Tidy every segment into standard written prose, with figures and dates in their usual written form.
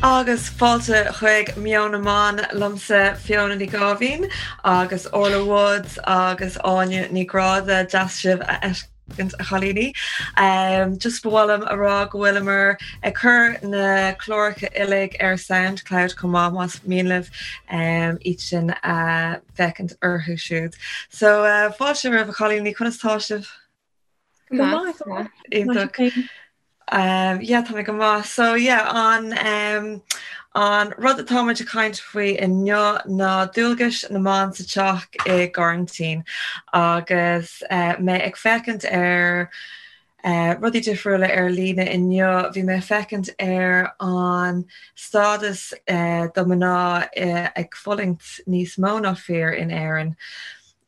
Agus fáilte chuig Meon na mBan liomsa Fiona Ní Gáibhín agus Orla Woods agus Áine Ní Ghráda deas sibh a fheiscint a chailíní. Just ba mhaith liom a rá go bhfuileamar ag cur na cláracha uilig ar Soundcloud chomh maith más mian libh iad sin a fheicint orthu siúd. So fáilte romhaibh a chailíní, conas tá sibh? Go maith. Iontach. Yeah, tá mé go maith. So yeah, an um, an rud atá muid ag caint faoi inniu ná dualgais na mban sa teach i gcoraintín agus uh, mé ag féachaint ar uh, rudaí difriúla ar líne inniu, bhí mé ag féachaint ar an stádas uh, do mná uh, ag fulaingt níos mó ná fir in Éirinn.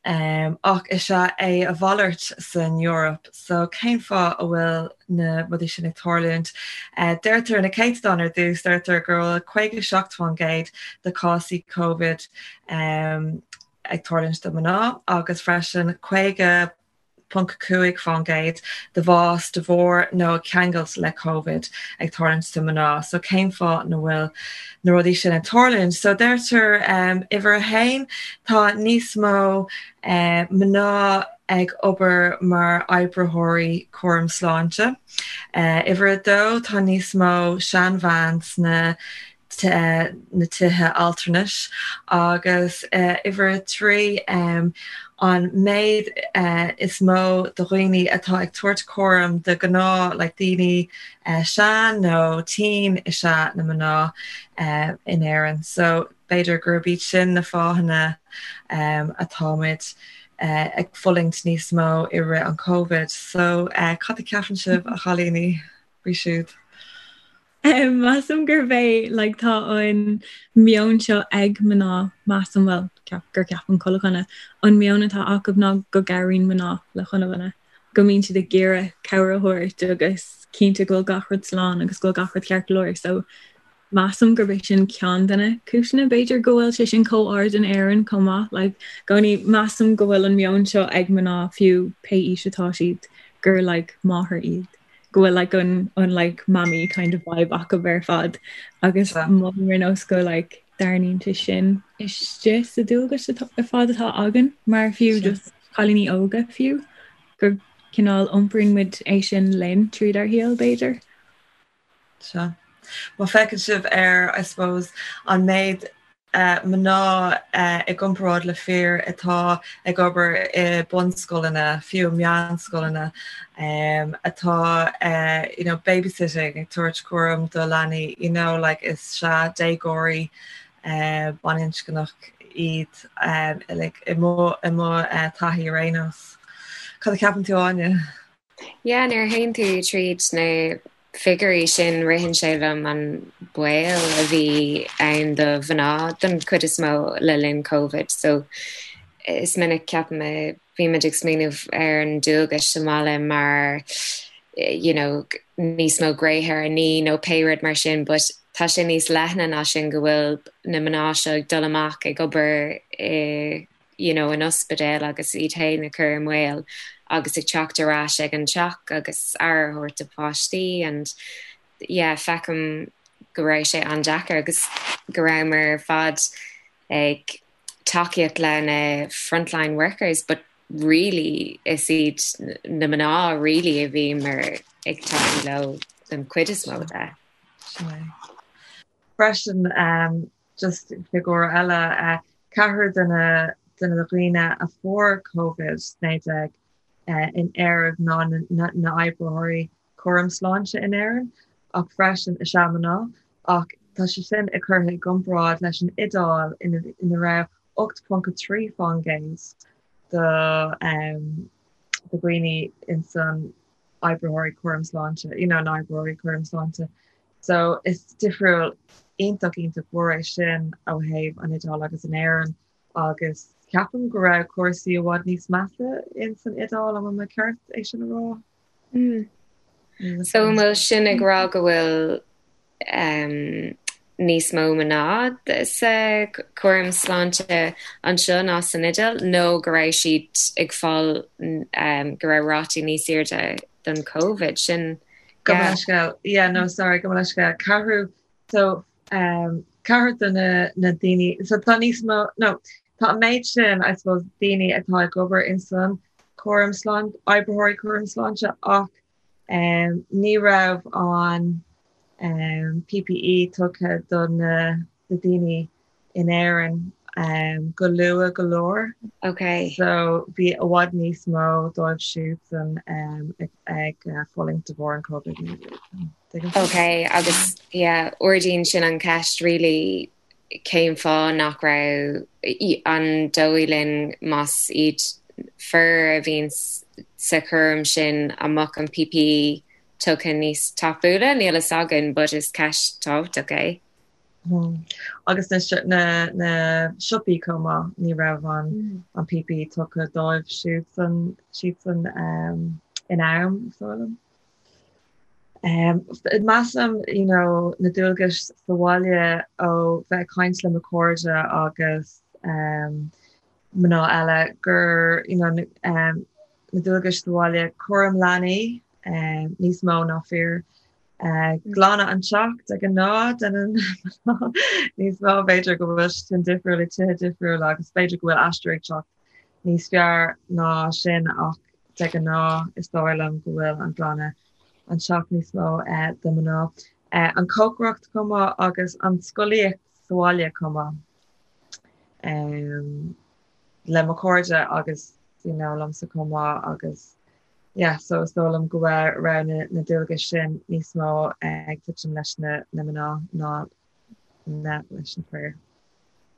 Ach is ea é a mhalairt san Eoraip. So cén fáth a bhfuil na rudaí sin ag tarlúint? Deirtear na céatadáin ar dtús, deirtear go bhfuil 57% de cásaí Covid ag tarlúint do mná agus freisin 50.5% de bhás de bharr nó ag ceangailt le Covid ag tarlúint do mná. So cén fáth na bhfuil na rudaí sin ag tarlúint? So deirtear uimhir a haon, tá níos mó mná ag obair mar oibritheoirí cúram sláinte. Uimhir a dó, tá níos mó seanbhean sna na tithe altranais agus uimhir a 3 an méid is mó de dhaoine atá ag tabhairt cúram de ghnáth like daoine sean nó tinn is ea na mná in Éirinn. So b'fhéidir gurb iad sin na fáthanna atáimid ag fulaingt níos mó i rith an Covid. So cad a cheapann sibh a chailíní faoi siúd? Measaim gurb é like tá an meon seo ag mná, measaim, bhuel, ceap, gur ceapann chuile dhuine, an meon atá acu ná go gcabhraíonn mná le chuile dhuine, go mbíonn siad ag iarraidh cabhair a thabhairt agus cinnte go bhfuil gach rud slán agus go bhfuil gach rud ceart go leor. So measaim gurb é sin ceann de na cúiseanna b'fhéidir go bhfuil sé sin chomh ard in Éirinn chomh maith. Like i gcónaí measaim go bhfuil an meon seo ag mná fiú pé aois atá siad gur like máthair iad. go bhfuil like an an like mammy kind of vibe acu ar fad agus mothaím ar nós go like dtarraingíonn sé sin istigh sa dualgas ar fad atá againn mar fiú just cailíní óga fiú gur cineál iompraíonn muid é sin linn tríd ár shaol b'fhéidir. Sea. Má feiceann sibh ar, I suppose, an méid mná i gcomparáid le fir atá ag obair i bunscoileanna, fiú meánscoileanna, atá you know babysitting, ag tabhairt cúram do leanaí, you know like is ea déagóirí baininscneach iad like i mo i mo taithí ar aon nós. Cad a cheapann tú Áine? Yeah, nuair a théann tú tríd na figiúirí sin, ritheann sé liom an baol a bhí ann do mhná don chuid is mó le linn Covid. So is minic ceapaim a bhímid ag smaoineamh ar an dualgais sa mbaile mar you know, níos mó gréithe ar ní nó pé rud mar sin, but tá sé níos leithne ná sin go bhfuil na mná seo ag dul amach ag obair i you know, in ospidéal agus iad féin a chur i mbaol agus ag teacht ar ais ag an teach agus aire a thabhairt do pháistí and yeah, feicim go raibh sé an-deacair agus go rabhamar ar fad ag tacaíocht le na frontline workers but really is iad na mná really a bhíomar ag tacú leo don chuid is mó de. Sin é. Freisin, um, Just figiúr eile, ceathrú de na de na dhaoine a fuair Covid-19 in Éirinn ná na oibritheoirí cúram sláinte in Éirinn, ach freisin is ea mná, ach tá sé sin ag curtha i gcomparáid leis an Iodáil ina raibh 8.3% de dhaoine insan oibritheoirí cúram sláinte, you know, na oibritheoirí cúram sláinte. So is difriúil iontach iontach mhór é sin ó thaobh an Iodáil agus in Éirinn agus ceapaim go raibh cúrsaí i bhfad níos measa in san Iodáil, an bhfuil mé ceart é sin a rá? Mm. So an bhfuil sin ag rá go bhfuil um, níos mó mná sa cúram sláinte anseo ná san Iodáil nó go raibh siad ag fáil um, go raibh rátaí níos airde don Covid sin Gabh mo leithscéal. Yeah, no, sorry, gabh mo leithscéal. Ceathrú, so, Ceathair de na daoine, so tá níos mó, no, tá an méid sin, I suppose, daoine atá ag obair in san cúram sláinte, oibritheoirí cúram sláinte ach ní raibh an PPE tugtha do na daoine in Éirinn go luath go leor. Ok. So bhí i bhfad níos mó dóibh siúdsan ag fulaingt de bharr an Covid-19. Ok, agus yeah, ardaíonn sin an cheist really cén fáth nach raibh, an dóigh linn más iad fir a bhíonn sa chúram sin an mbeadh an PPE tugtha níos tapúla? Níl a fhios againn but is ceist tábhachtach é. Agus na na siopaí chomh maith, ní raibh an an PPE tugtha dóibh siúdsan siadsan in am, is dóigh liom. Measaim you know na dualgais sa bhaile ó bheith ag caint le mo chairde agus mná eile gur you know na dualgais sa bhaile, cúram leanaí níos mó ná fir, Glanadh an teach de ghnáth déanann mná níos mó, b'fhéidir go bhfuil sin difriúil i tithe difriúla agus b'fhéidir go bhfuil Aistear ag teacht níos fearr ná sin ach de ghnáth is dóigh liom go bhfuil an glanadh an teach níos mó do mná. An cócaireacht chomh maith agus an scolaíocht sa bhaile chomh maith. Le mo chairde agus you know liomsa chomh maith agus yeah so is dóigh liom go raibh na na dualgais sin níos mó ag titim leis na na mná ná na leis na fir.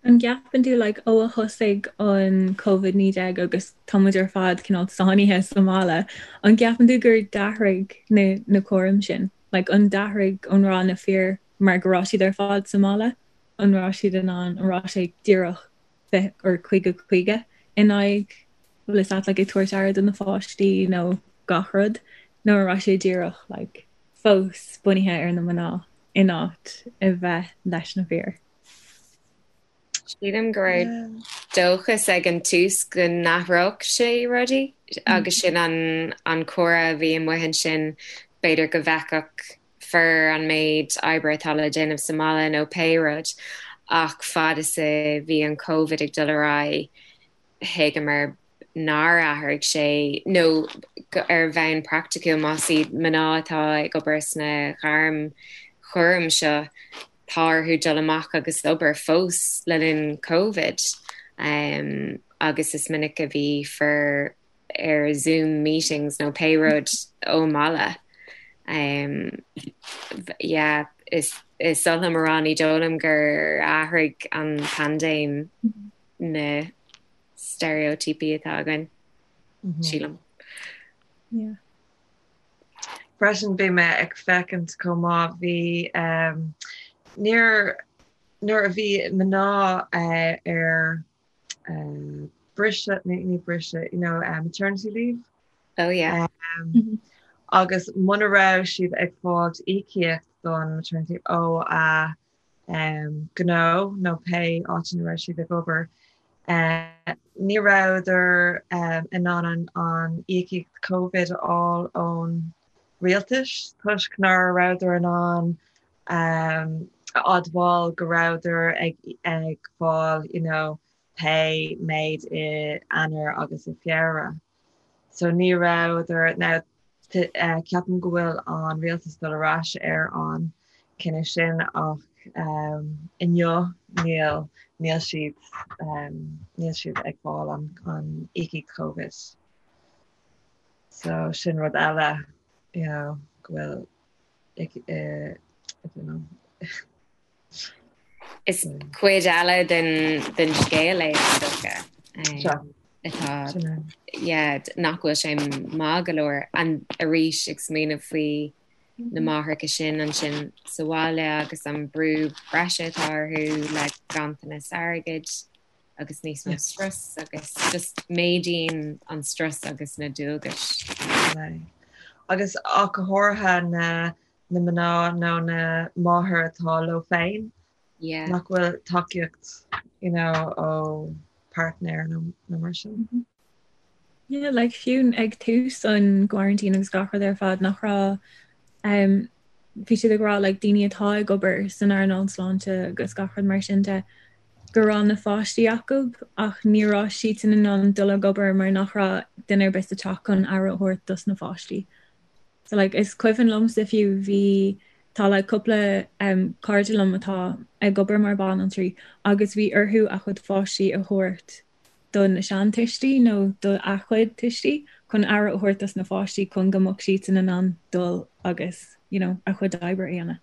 An gceapann tú like ó a thosaigh an Covid-19 agus tá muid ar fad cineál sáinnithe sa mbaile, an gceapann tú gur d'athraigh na na cúraim sin? Like an d'athraigh an raibh na fir mar go raibh siad ar fad sa mbaile, an raibh siad in ann, an raibh sé díreach 20 or 50 50 in aghaidh bhfuil fhios agat like ag tabhairt aire do na pháistí nó gach rud nó an raibh sé díreach like fós bunaithe ar na mná in áit a bheith leis na fir. Sílim go raibh dóchas ag an tús go n-athródh sé rudaí agus sin an an comhrá a bhí amuigh ansin b'fhéidir go bhfeicfeadh fir an méid oibre atá le déanamh sa mbaile nó pé rud ach fad is a bhí an Covid ag dul ar aghaidh thuigeamar nár athraigh sé nó ar bhonn praiticiúil más iad mná atá ag obair sna gairm chúraim seo tá orthu dul amach agus obair fós le linn Covid agus is minic a bhí fir ar Zoom meetings nó pé rud ón mbaile. Yeah, is is oth liom a rá ní dóigh liom gur athraigh an paindéim na steiréitíopaí atá againn, sílim. Yeah. Freisin bhí mé ag féachaint chomh maith, bhí níor nuair a bhí mná ar briseadh, ní briseadh, you know, maternity leave. Oh yeah. Agus muna raibh siad ag fáilt íocaíocht don maternity leave ó a gnó nó pé áit ina raibh siad ag obair, ní rabhadar in ann an íocaíocht Covid a fháil ón rialtas toisc nach rabhadar in ann a admháil go rabhadar ag ag fáil you know pé méid i Eanáir agus i Feabhra. So ní rabhadar now ceapaim go bhfuil an rialtas dul ar ais ar an cinneadh sin ach inniu níl níl siad níl siad ag fáil an an íocaíocht Covid. So sin rud eile you know go bhfuil I don't know. Is cuid eile den den scéal é is dócha. Atá yeah nach bhfuil sé maith go leor an arís ag smaoineamh faoi na máithreacha sin ansin sa bhaile agus an brú breise atá orthu le ganntanas airgid. agus níos mó strus agus just méadaíonn an strus agus na dualgais. Agus ach go háirithe na na mná nó na máthair atá leo féin yeah. nach bhfuil tacaíocht you know, ó partner nó nó mar sin. Mm -hmm. Yeah, like fiú ag tús an quarantine agus gach rud ar fad nach raibh um, Bhí siad ag rá like daoine atá ag obair san earnáil sláinte agus gach rud mar sin de go raibh na pháistí acu ach ní raibh siadsan in ann dul ag obair mar nach raibh duine ar bith sa teach chun aire a thabhairt dos na pháistí. So like is cuimhin liomsa fiú bhí tá like cúpla um, cairde liom atá ag obair mar banaltraí agus bhí orthu a chuid pháistí a thabhairt do na seantuistí nó do a chuid tuistí chun aire a thabhairt dos na pháistí chun go mbeadh siadsan in ann dul agus you know, a chuid oibre a dhéanamh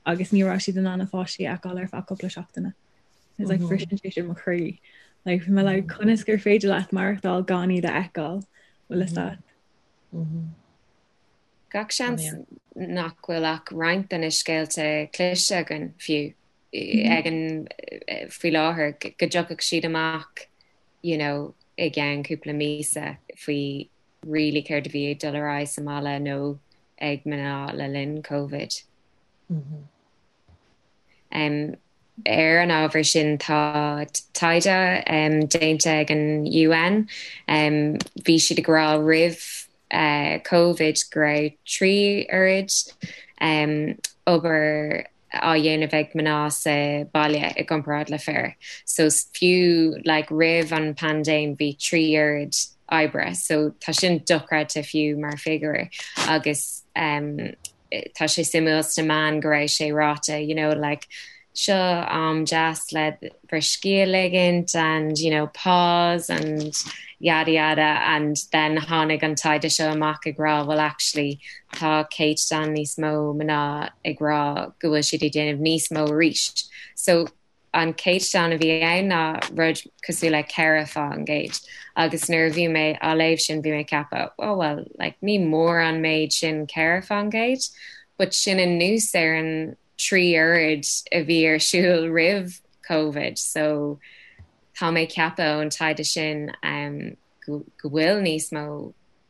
agus ní raibh siad in ann a pháistí a fheiceáil ar feadh cúpla seachtaine. It's like briseann sé sin mo chroí. Like bhí mé like conas gur féidir leat maireachtáil gan iad a fheiceáil bhfuil fhios agat. Gach seans nach bhfuil ach roinnt de na scéalta cloiste againn fiú. ag an faoi láthair go dtiocfadh siad amach you know i gceann cúpla míosa faoi really céard a bhí ag dul ar aghaidh sa mbaile nó ag mná le linn Covid. Um, ar an ábhar sin tá taighde um, déanta ag an UN. Um, bhí siad ag rá roimh uh, Covid go raibh 3 oiread um, obair á dhéanamh ag mná sa baile i gcomparáid le fir. So fiú like roimh an paindéim bhí 3 oiread oibre. So tá sin dochreidte fiú mar figiúr agus um, tá sé suimiúil sna meáin go raibh sé ráite you know like seo am deas le bhur scíth a ligint and you know pause and yada yada and then tháinig an taighde seo amach ag rá well actually tá céatadán níos mó mná ag rá go bhfuil siad ag déanamh níos mó arís. So an céatadán a bhí ann ná rud cosúil le 4% agus nuair a bhí mé á léamh sin bhí mé ag ceapadh oh well like ní mór an méid sin 4% but sin anuas ar an 3 oiread a bhí ar siúl roimh Covid so tá mé ag ceapadh ón taighde sin um, go, go bhfuil níos mó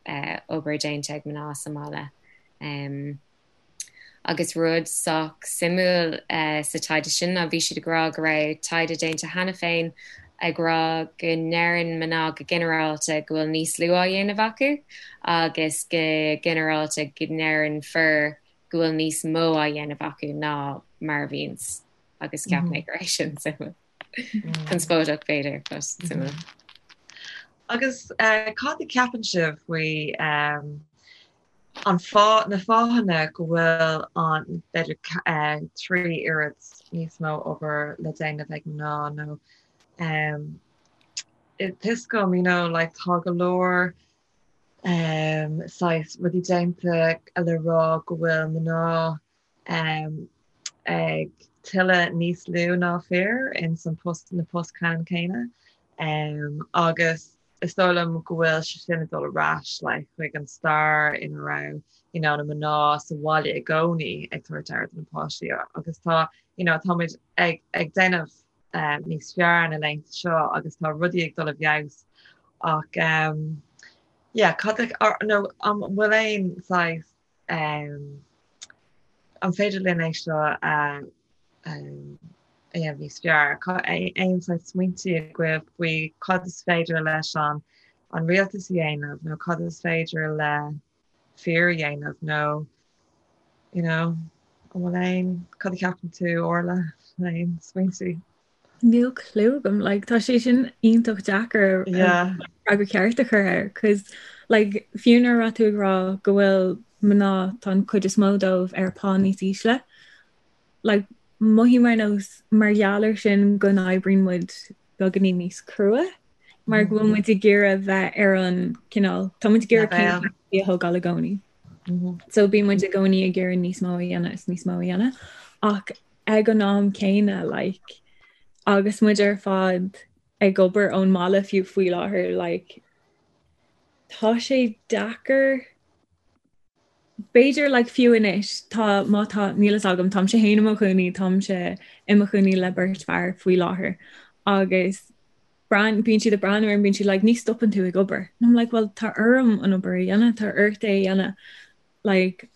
uh, obair déanta ag mná sa mbaile. Um, Agus rud sách suimiúil sa taighde sin ná bhí siad ag rá go raibh taighde déanta cheana féin ag rá go ndeireann mná go ginearálta go bhfuil níos lú á dhéanamh acu agus go ginearálta go ndeireann fir go bhfuil níos mó á dhéanamh acu ná mar a bhíonns agus cheap mé go raibh sin suimiúil. Conspóideach b'fhéidir, but suimiúil. Agus cad a cheapann sibh faoi an fáth, na fáthanna go bhfuil an, b'fhéidir, 3 oiread níos mó obair le déanamh ag mná nó tá 'fhios agam, you know, like tá go leor saghas rudaí déanta le rá go bhfuil mná ag tuilleadh níos lú ná fir ins an post, na post ceannann céanna agus is dóigh liom go bhfuil sé sin ag dul ar ais like chuig an stair ina raibh you know na mná sa bhaile i gcónaí ag tabhairt aire do na páistí agus tá you know táimid ag ag déanamh um, níos fearr na laethanta seo agus tá rudaí ag dul i bhfeabhas ach um, yeah cad nó an bhfuil aon saghas um, an féidir linn é seo a dhéanamh níos fearr? Aon saghas smaointe agaibh faoi cad is féidir leis an an rialtas a dhéanamh nó cad is féidir le fir a dhéanamh nó you know, an bhfuil aon, cad a cheapann tú Orla, aon smaointe? Níl clue agam, like, tá sé sin iontach deacair yeah. freagra ceart a chur air, cos like, fiú nuair a raibh tú ag rá go bhfuil mná tá an chuid is mó dóibh ar pá níos ísle, like, mothaím ar nós mar gheall ar sin go n-oibríonn muid beagáinín níos crua, mar go bhfuil muid ag iarraidh bheith ar an cineál, tá muid ag iarraidh céim a thógáil i gcónaí. So bíonn muid i gcónaí ag iarraidh níos mó a dhéanamh is níos mó a dhéanamh. Ach ag an am céanna like agus muid ar fad ag obair ón mbaile fiú faoi láthair like tá sé deacair b'fhéidir like fiú anois tá má tá níl fhios agam táimse féin i mo chónaí táimse i mo chónaí le beirt fear faoi láthair agus brean bíonn siad ag breathnú orm bíonn siad like ní stopann tú ag obair and I'm like well tá orm an obair a dhéanamh tá ort é a dhéanamh like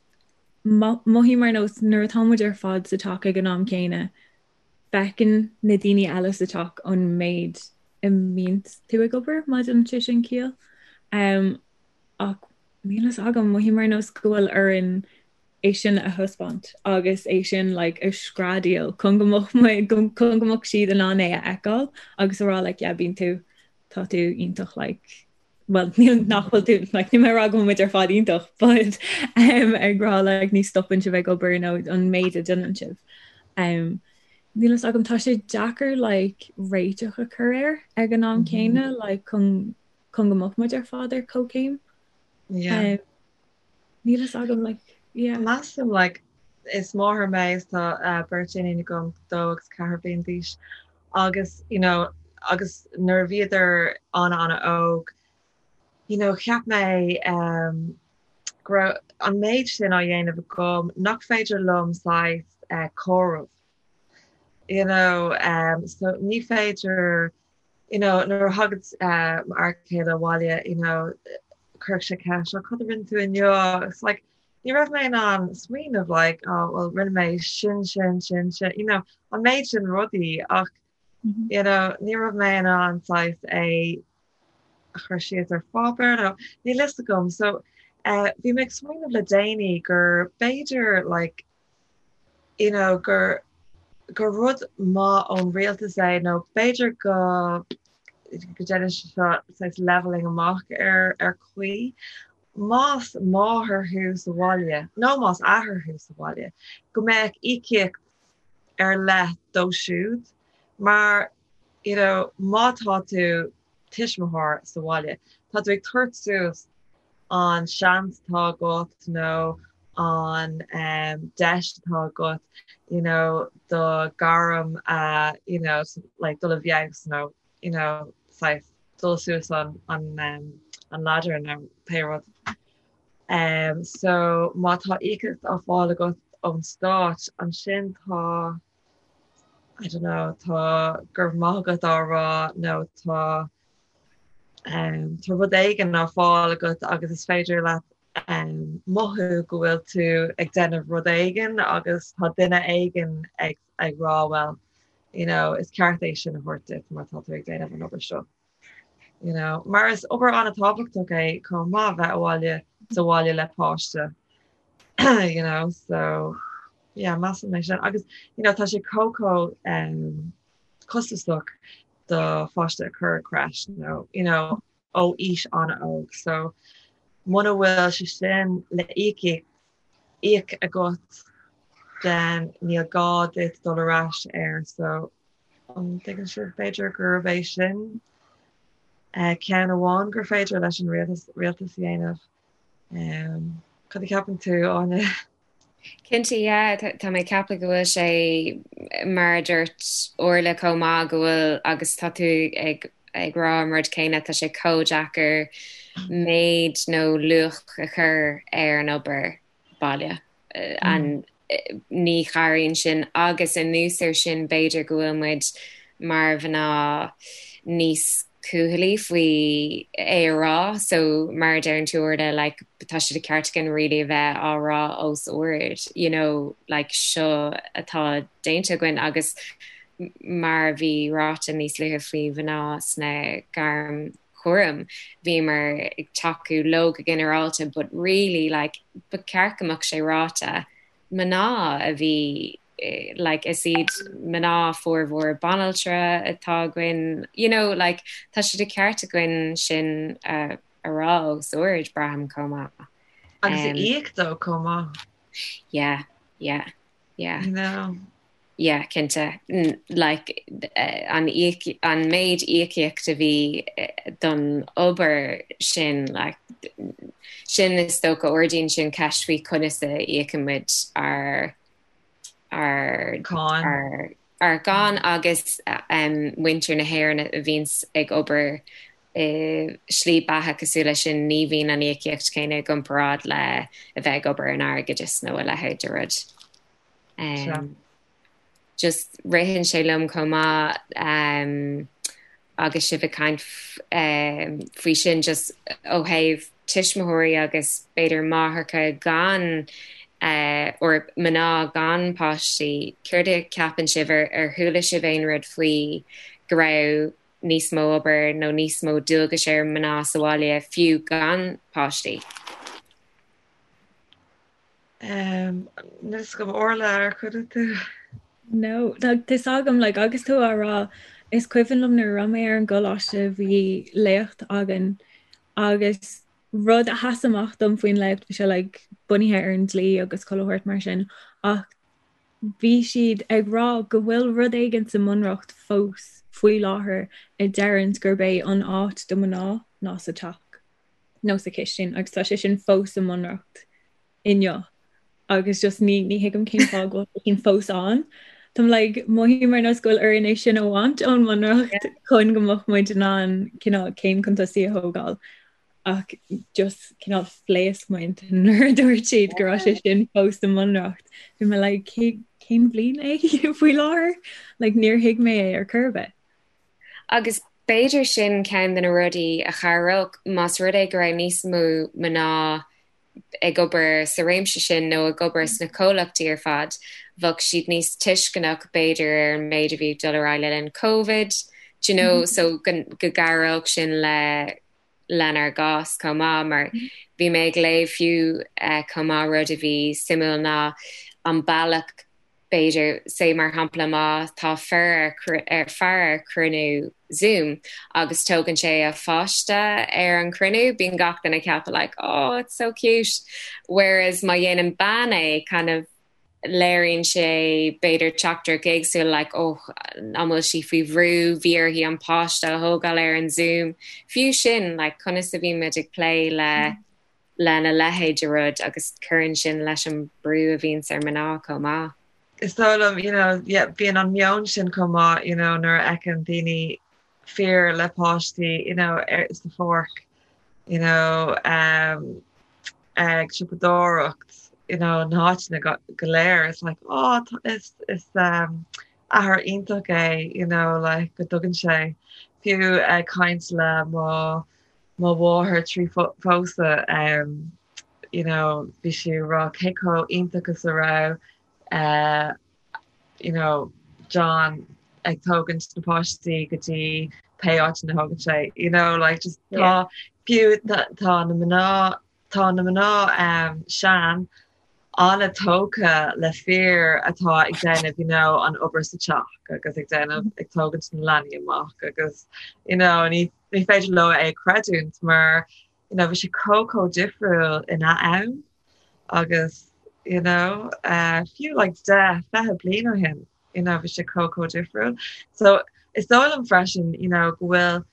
mothaím ar nós nuair atá muid ar fad sa teach ag an am céanna, feiceann na daoine eile sa teach an méid a mbíonn tú ag obair, má dhéanann sé sin ciall. Um, ach níl fhios agam, mothaím ar nós go bhfuil orainn. é sin a thaispeáint agus é sin like a screadaíl chun go mbeadh muid chun go mbeadh siad in ann é a fheiceáil agus a rá like yeah bíonn tú tá tú iontach like well níl nach bhfuil tú like níl mé ag rá go bhfuil muid ar fad iontach but um, ag rá like ní stopann sibh ag obair nó an méid a déanann sibh. Um, Níl fhios agam tá sé deacair like réiteach a chur air ag an am céanna like chun chun go mbeadh muid ar fad ar comhchéim. Yeah. Um, Níl fhios agam like yeah. Measaim like is máthair mé is tá uh, beirt iníon agam 2 agus 4 bliain d'aois agus you know agus nuair a bhíodar an-an-óg you know cheap mé um, go raibh an méid sin á dhéanamh agam nach féidir liom saghas uh, comhaireamh you know um, so ní féidir you know nuair a thagadh uh, m'fhear céile abhaile you know chuirfeadh sé ceist oh, cad a rinne tú inniu it's like ní raibh mé in ann smaoineamh like oh well rinne mé sin sin sin sin you know an méid sin rudaí ach mm -hmm. you know ní raibh mé in ann saghas é a chur síos ar pháipéar nó níl fhios agam so uh, bhí mé ag smaoineamh le déanaí gur b'fhéidir like you know gur gur rud maith ón rialtas é nó b'fhéidir go go ndéanann sé seo saghas leveling amach ar ar chaoi. Más máthair thú sa bhaile nó más athair thú sa bhaile, go mbeadh íocaíocht ar leith dóibh siúd mar you know má tá tú tuismitheoir sa bhaile, tá tú ag tabhairt suas an seans atá agat nó an deis atá agat you know do ghairm a you know like dul i bhfeabhas nó you know saghas dul suas an an an ladder nó pé rud. Um, so má tá íocaíocht á fáil agat ón stát ansin tá I don't know, tá go raibh maith agat á rá nó tá um, tá rud éigin á fáil agat agus is féidir leat um, mothú go bhfuil tú ag déanamh rud éigin agus tá duine éigin ag, ag rá well, you know, is ceart é sin a thabhairt duit mar tá tú ag déanamh an obair seo. You know, mar is obair an-tábhachtach é chomh maith bheith abhaile sa bhaile le páiste. you know, so yeah, measaim é sin. Agus you know, tá sé chomh chomh um, costasach do pháiste a chur i creche nó you know, ó aois an-óg. So muna bhfuil sé sin le íoc íoc agat then níl gá duit dul ar ais air. So an dtuigeann sibh b'fhéidir gurb é sin uh, ceann amháin gur féidir leis an rialtas, rialtas a dhéanamh. Um, cad a cheapann tú Áine? Cinnte, yeah, tá mé ag ceapadh go bhfuil sé mar a dúirt Orla chomh maith go bhfuil agus tá tú ag ag rá an rud céanna, tá sé chomh deacair méid nó luach a chur ar an obair baile. An ní chabhraíonn sin agus anuas ar sin b'fhéidir go bhfuil muid mar mhná níos cúthalaí faoi é a rá so mar a deireann tú Orla like tá sé de cheart againn really a bheith á rá os ard you know like seo atá déanta againn agus mar a bhí ráite níos luaithe faoi mhná sna gairm chúraim bhíomar ag tacú leo go ginearálta but really like ba cheart go mbeadh sé ráite mná a bhí like is iad mná formhór banaltra atá againn you know like tá sé de cheart againn sin a a rá os ard braithim chomh maith. Agus a íoc dó chomh maith. Yeah, yeah, yeah. You know. Yeah, cinnte. Like an an méid íocaíocht a bhí don obair sin like sin is dócha ardaíonn sin ceist faoi conas a íocann muid ár ár Cáin. ár ár gcáin agus muintir na hÉireann a bhíonns ag obair i slí beatha cosúil leis sin ní bhíonn an íocaíocht céanna i gcomparáid le a bheith ag obair in airgeadas nó a leithéid de rud. Um, just ritheann sé liom chomh maith um, agus sibh ag caint um, faoi sin just ó thaobh tuismitheoirí agus b'fhéidir máithreacha gan uh, or mná gan páistí, céard a cheapann sibh ar, ar chuala sibh aon rud faoi go raibh níos mó obair nó níos mó dualgais ar mná sa bhaile fiú gan páistí? Níl fhios agam Orla ar chuimhnigh tú? No, tá fhios agam, like, agus tú á rá, is cuimhin liom nuair a raibh mé ar an gcoláiste bhí léacht againn agus rud a sheas amach dom faoin léacht, bhí sé like, bunaithe ar an dlí agus chuile shórt mar sin, ach bhí siad ag rá go bhfuil rud éigin sa mBunreacht fós faoi láthair a deireanns gurb é an áit do mná ná sa teach nó sa chistin agus tá sé sin fós sa mBunreacht. inniu agus just ní ní thuigim cén fáth go bhfuil sin fós ann. Táim like mothaím ar nós go bhfuil orainn é sin a bhaint ón mBunreacht chun go mbeadh muid in ann cineál céim chun tosaigh a thógáil ach just cineál phléasc m'intinn nuair a dúirt siad go raibh sé sin fós sa mBunreacht. Bhí mé like cé cén bhliain é faoi láthair? Like níor thuig mé é ar chor ar bith. Agus b'fhéidir sin ceann de na rudaí a chabhródh más rud é go raibh níos mó mná ag obair sa réimse sin nó ag obair sna comhlachtaí ar fad, bheadh siad níos tuisceanach b'fhéidir ar an méid a bhí ag dul ar aghaidh le linn Covid, do you know, so go gcabhródh sin le lenár gcás chomh maith mar bhí mé ag léamh fiú chomh maith rud a bhí suimiúil ná an bealach b'fhéidir, say mar shampla má tá fear ar fear ar chruinniú Zoom agus tógann sé a pháiste ar an chruinniú, bíonn gach duine ag ceapadh like oh it's so cute whereas má dhéanann bean é kind of léiríonn sé b'fhéidir teachtaireacht éagsúil like oh an bhfuil sí faoi bhrú, bhí uirthi an páiste a thógáil ar an Zoom. Fiú sin like conas a bhíonn muid ag plé le lena leithéid de rud agus cuireann sin leis an brú a bhíonns ar mná chomh maith. Is dóigh liom, you know, yeah, bíonn an meon sin chomh maith, you know, nuair a fheiceann daoine fir le páistí, you know, ar, sa pháirc, you know, um, ag siopadóireacht, you know, na háiteanna go, go léir, it's like, oh, is, is um, athair iontach é, you know, like, go dtugann sé, fiú ag caint le mo mo mháthair trí phósadh you know bhí sí ag rá cé chomh iontach is a raibh eh you know John ag tógaint na páistí go dtí pé áit ina thógann sé you know like just tá fiú tá na mná tá na mná um sean an-tógtha le fir atá ag déanamh you know an obair sa teach agus ag déanamh ag tógaint na leanaí amach agus you know ní ní féidir leo é a chreidiúint mar you know bhí sé chomh chomh difriúil ina am agus you know uh, fiú like 10 20 bliain ó shin you know bhí sé chomh chomh difriúil. So is dóigh liom freisin you know go bhfuil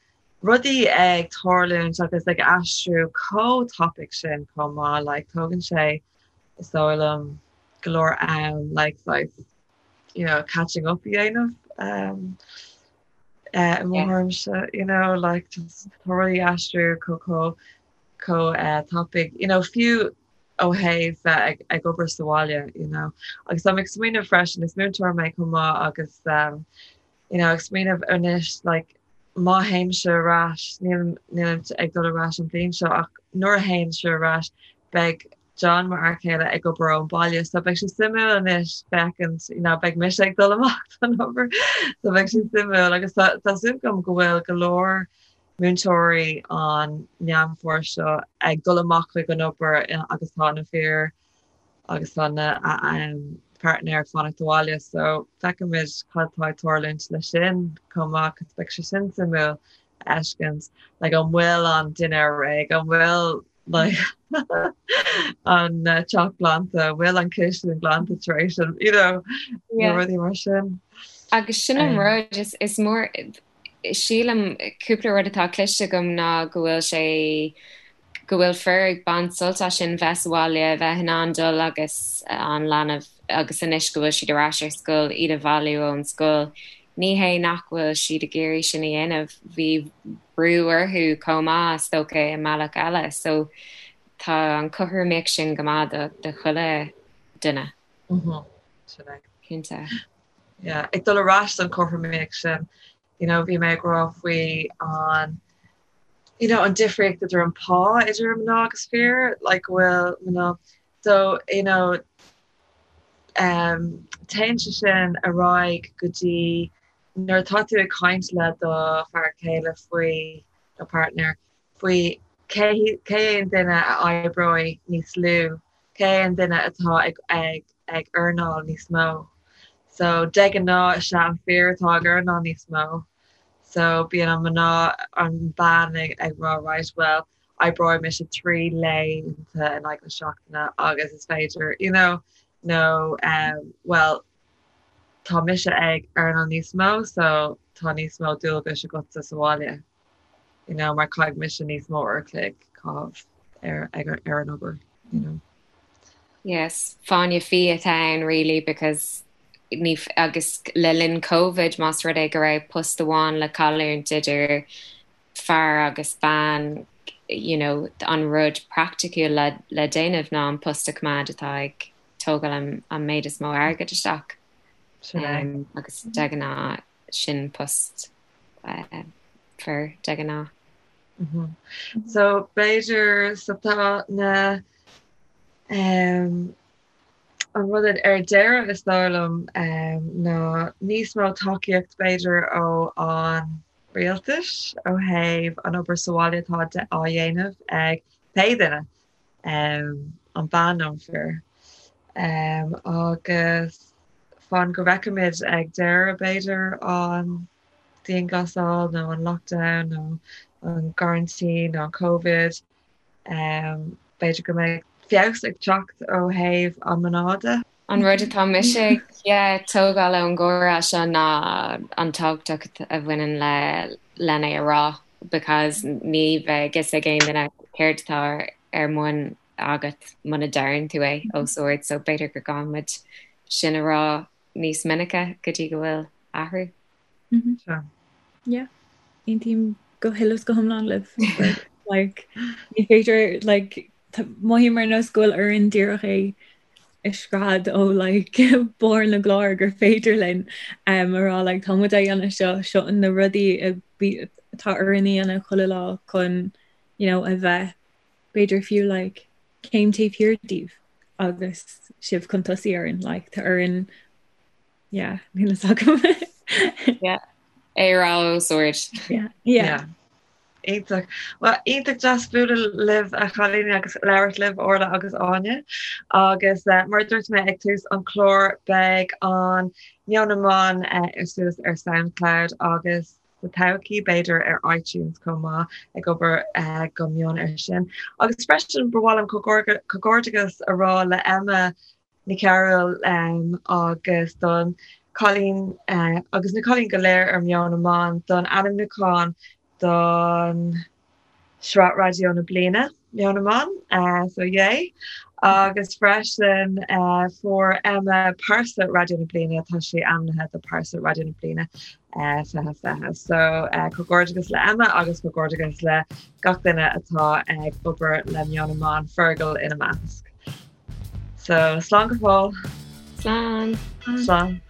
rudaí ag tarlúint agus ag aistriú chomh tapaidh sin chomh maith like tógann sé is dóigh liom go leor am like saghas you know catching up a dhéanamh um, uh, i mo thuairimse you know like just tá rudaí ag aistriú chomh chomh chomh uh, tapaidh you know fiú ó thaobh bheith ag, ag obair sa bhaile you know agus táim ag smaoineamh freisin is múinteoir mé chomh maith agus um, you know ag smaoineamh anois like má théimse ar ais níl nílim ag dul ar ais an bhliain seo ach nuair a théimse ar ais beidh John mo fhear céile ag obair ón baile so beidh sé suimiúil anois féachaint you know beidh mise ag dul amach don obair so beidh sé suimiúil agus tá tá súil agam go bhfuil go leor múinteoirí an Meán Fómhair seo ag dul amach chuig an obair agus tá na fir agus tá na páirtnéir ag fanacht abhaile so feicfimid cad tá ag tarlúint leis sin chomh maith cos beidh sé sin suimiúil a fheiscint like an bhfuil an dinnéar réidh an bhfuil like an teach glanta an bhfuil an chistin glanta tar éis an you know na rudaí mar sin. Agus sin an rud is is mór Sílim, cúpla rud atá cloiste agam ná go bhfuil sé, go bhfuil fir ag baint sult as sin, bheith sa bhaile, bheith in ann dul agus an leanbh, agus anois go bhfuil siad ar ais ar scoil, iad a bhailiú ón scoil. Ní hé nach bhfuil siad ag iarraidh sin a dhéanamh, bhí brú orthu chomh maith, is dócha, i mbealach eile. So tá an chothromaíocht sin go maith do do chuile duine. Sin é. Cinnte. Yeah, ag dul ar ais don chothromaíocht sin, you know, bhí mé ag rá faoi an, you know, an difríocht idir an pá idir mná agus fir, like go bhfuil mná, so, you know, um, téann sé sin ar aghaidh go dtí nuair atá tú ag caint le do fear céile faoi, nó partner, faoi cé, cé an duine a oibreoidh níos lú. cé an duine atá ag ag ag earnáil níos mó. So de ghnáth is é an fear atá ag earnáil níos mó. So bíonn an mná an bean ag ag rá right well oibreoidh mise 3 laethanta in aghaidh na seachtaine agus is féidir you know nó um well tá mise ag earnáil níos mó so tá níos mó dualgais agatsa sa bhaile you know mar caithfidh mise níos mó uair a chloig caitheamh ar ag ar an obair you know. Yes, fáinne fí atá ann really because ní agus le linn Covid más rud é go raibh post amháin le cailliúint idir fear agus bean you know an rud praiticiúil le le déanamh ná an post a choimeád atá ag tógáil an an méid is mó airgid isteach. Sin é. Um, agus de ghnáth sin post uh, fir de ghnáth. Mm -hmm. So b'fhéidir so tá na um, an rud ar deireadh is dóigh liom um, ná níos mó tacaíocht b'fhéidir ó an rialtais ó thaobh an obair sa bhaile atá á dhéanamh ag pé duine, an bean nó an fear. Agus fan go bhfeicfimid ag deireadh b'fhéidir an dianghlasáil nó an lockdown nó an gcoraintín nó an Covid, B'fhéidir go mbeidh feabhas ag teacht ó thaobh an mná de. An rud atá mise ag tógáil ón gcomhrá seo ná an tábhacht a bhaineann le len é a rá because ní bheidh fhios ag aon duine céard atá ar bun agat muna deireann tú é os ard so b'fhéidir go gcaithfidh muid sin a rá níos minice go dtí go bhfuil athrú. Sea. Yeah. Aontaím go huile is go hiomlán libh. Like, ní féidir, like, mothaím ar nós go bhfuil orainn díreach é a scread ó like, barr na gclár gur féidir linn um, a rá like, tá muid á dhéanamh seo, seo na rudaí atá orainn a dhéanamh chuile lá chun you know, a bheith b'fhéidir fiú like, céim taobh thiar díobh agus sibh chun tosaigh orainn like, tá orainn Yeah, níl a fhios agam. Yeah. É a rá os ard. Yeah. Yeah. Iontach. Well, iontach deas bualadh libh a chailíní agus labhairt libh Orla agus Áine. Agus uh, mar dúirt mé ag tús an chlár beidh an Meon na mBan uh, suas ar SoundCloud agus sa todhchaí b'fhéidir ar iTunes chomh maith ag obair uh, go mion ar sin. Agus freisin ba mhaith liom comhghairdeachas a rá le Emma Nic Cearúil agus don cailín agus na cailíní go léir ar Meon na mBan don ainmniúchán don Sraith Raidió na Bliana, Meon na mBan, so yay! Agus freisin fuair Emma Pearsa Raidió na Bliana, tá sí ainmnithe do Pearsa Raidió na Bliana 2020. So comhghairdeachas le Emma agus comhghairdeachas le gach duine atá ag obair le Meon na mBan, Fergal ina measc. So slán go fóill. Slán. Slán.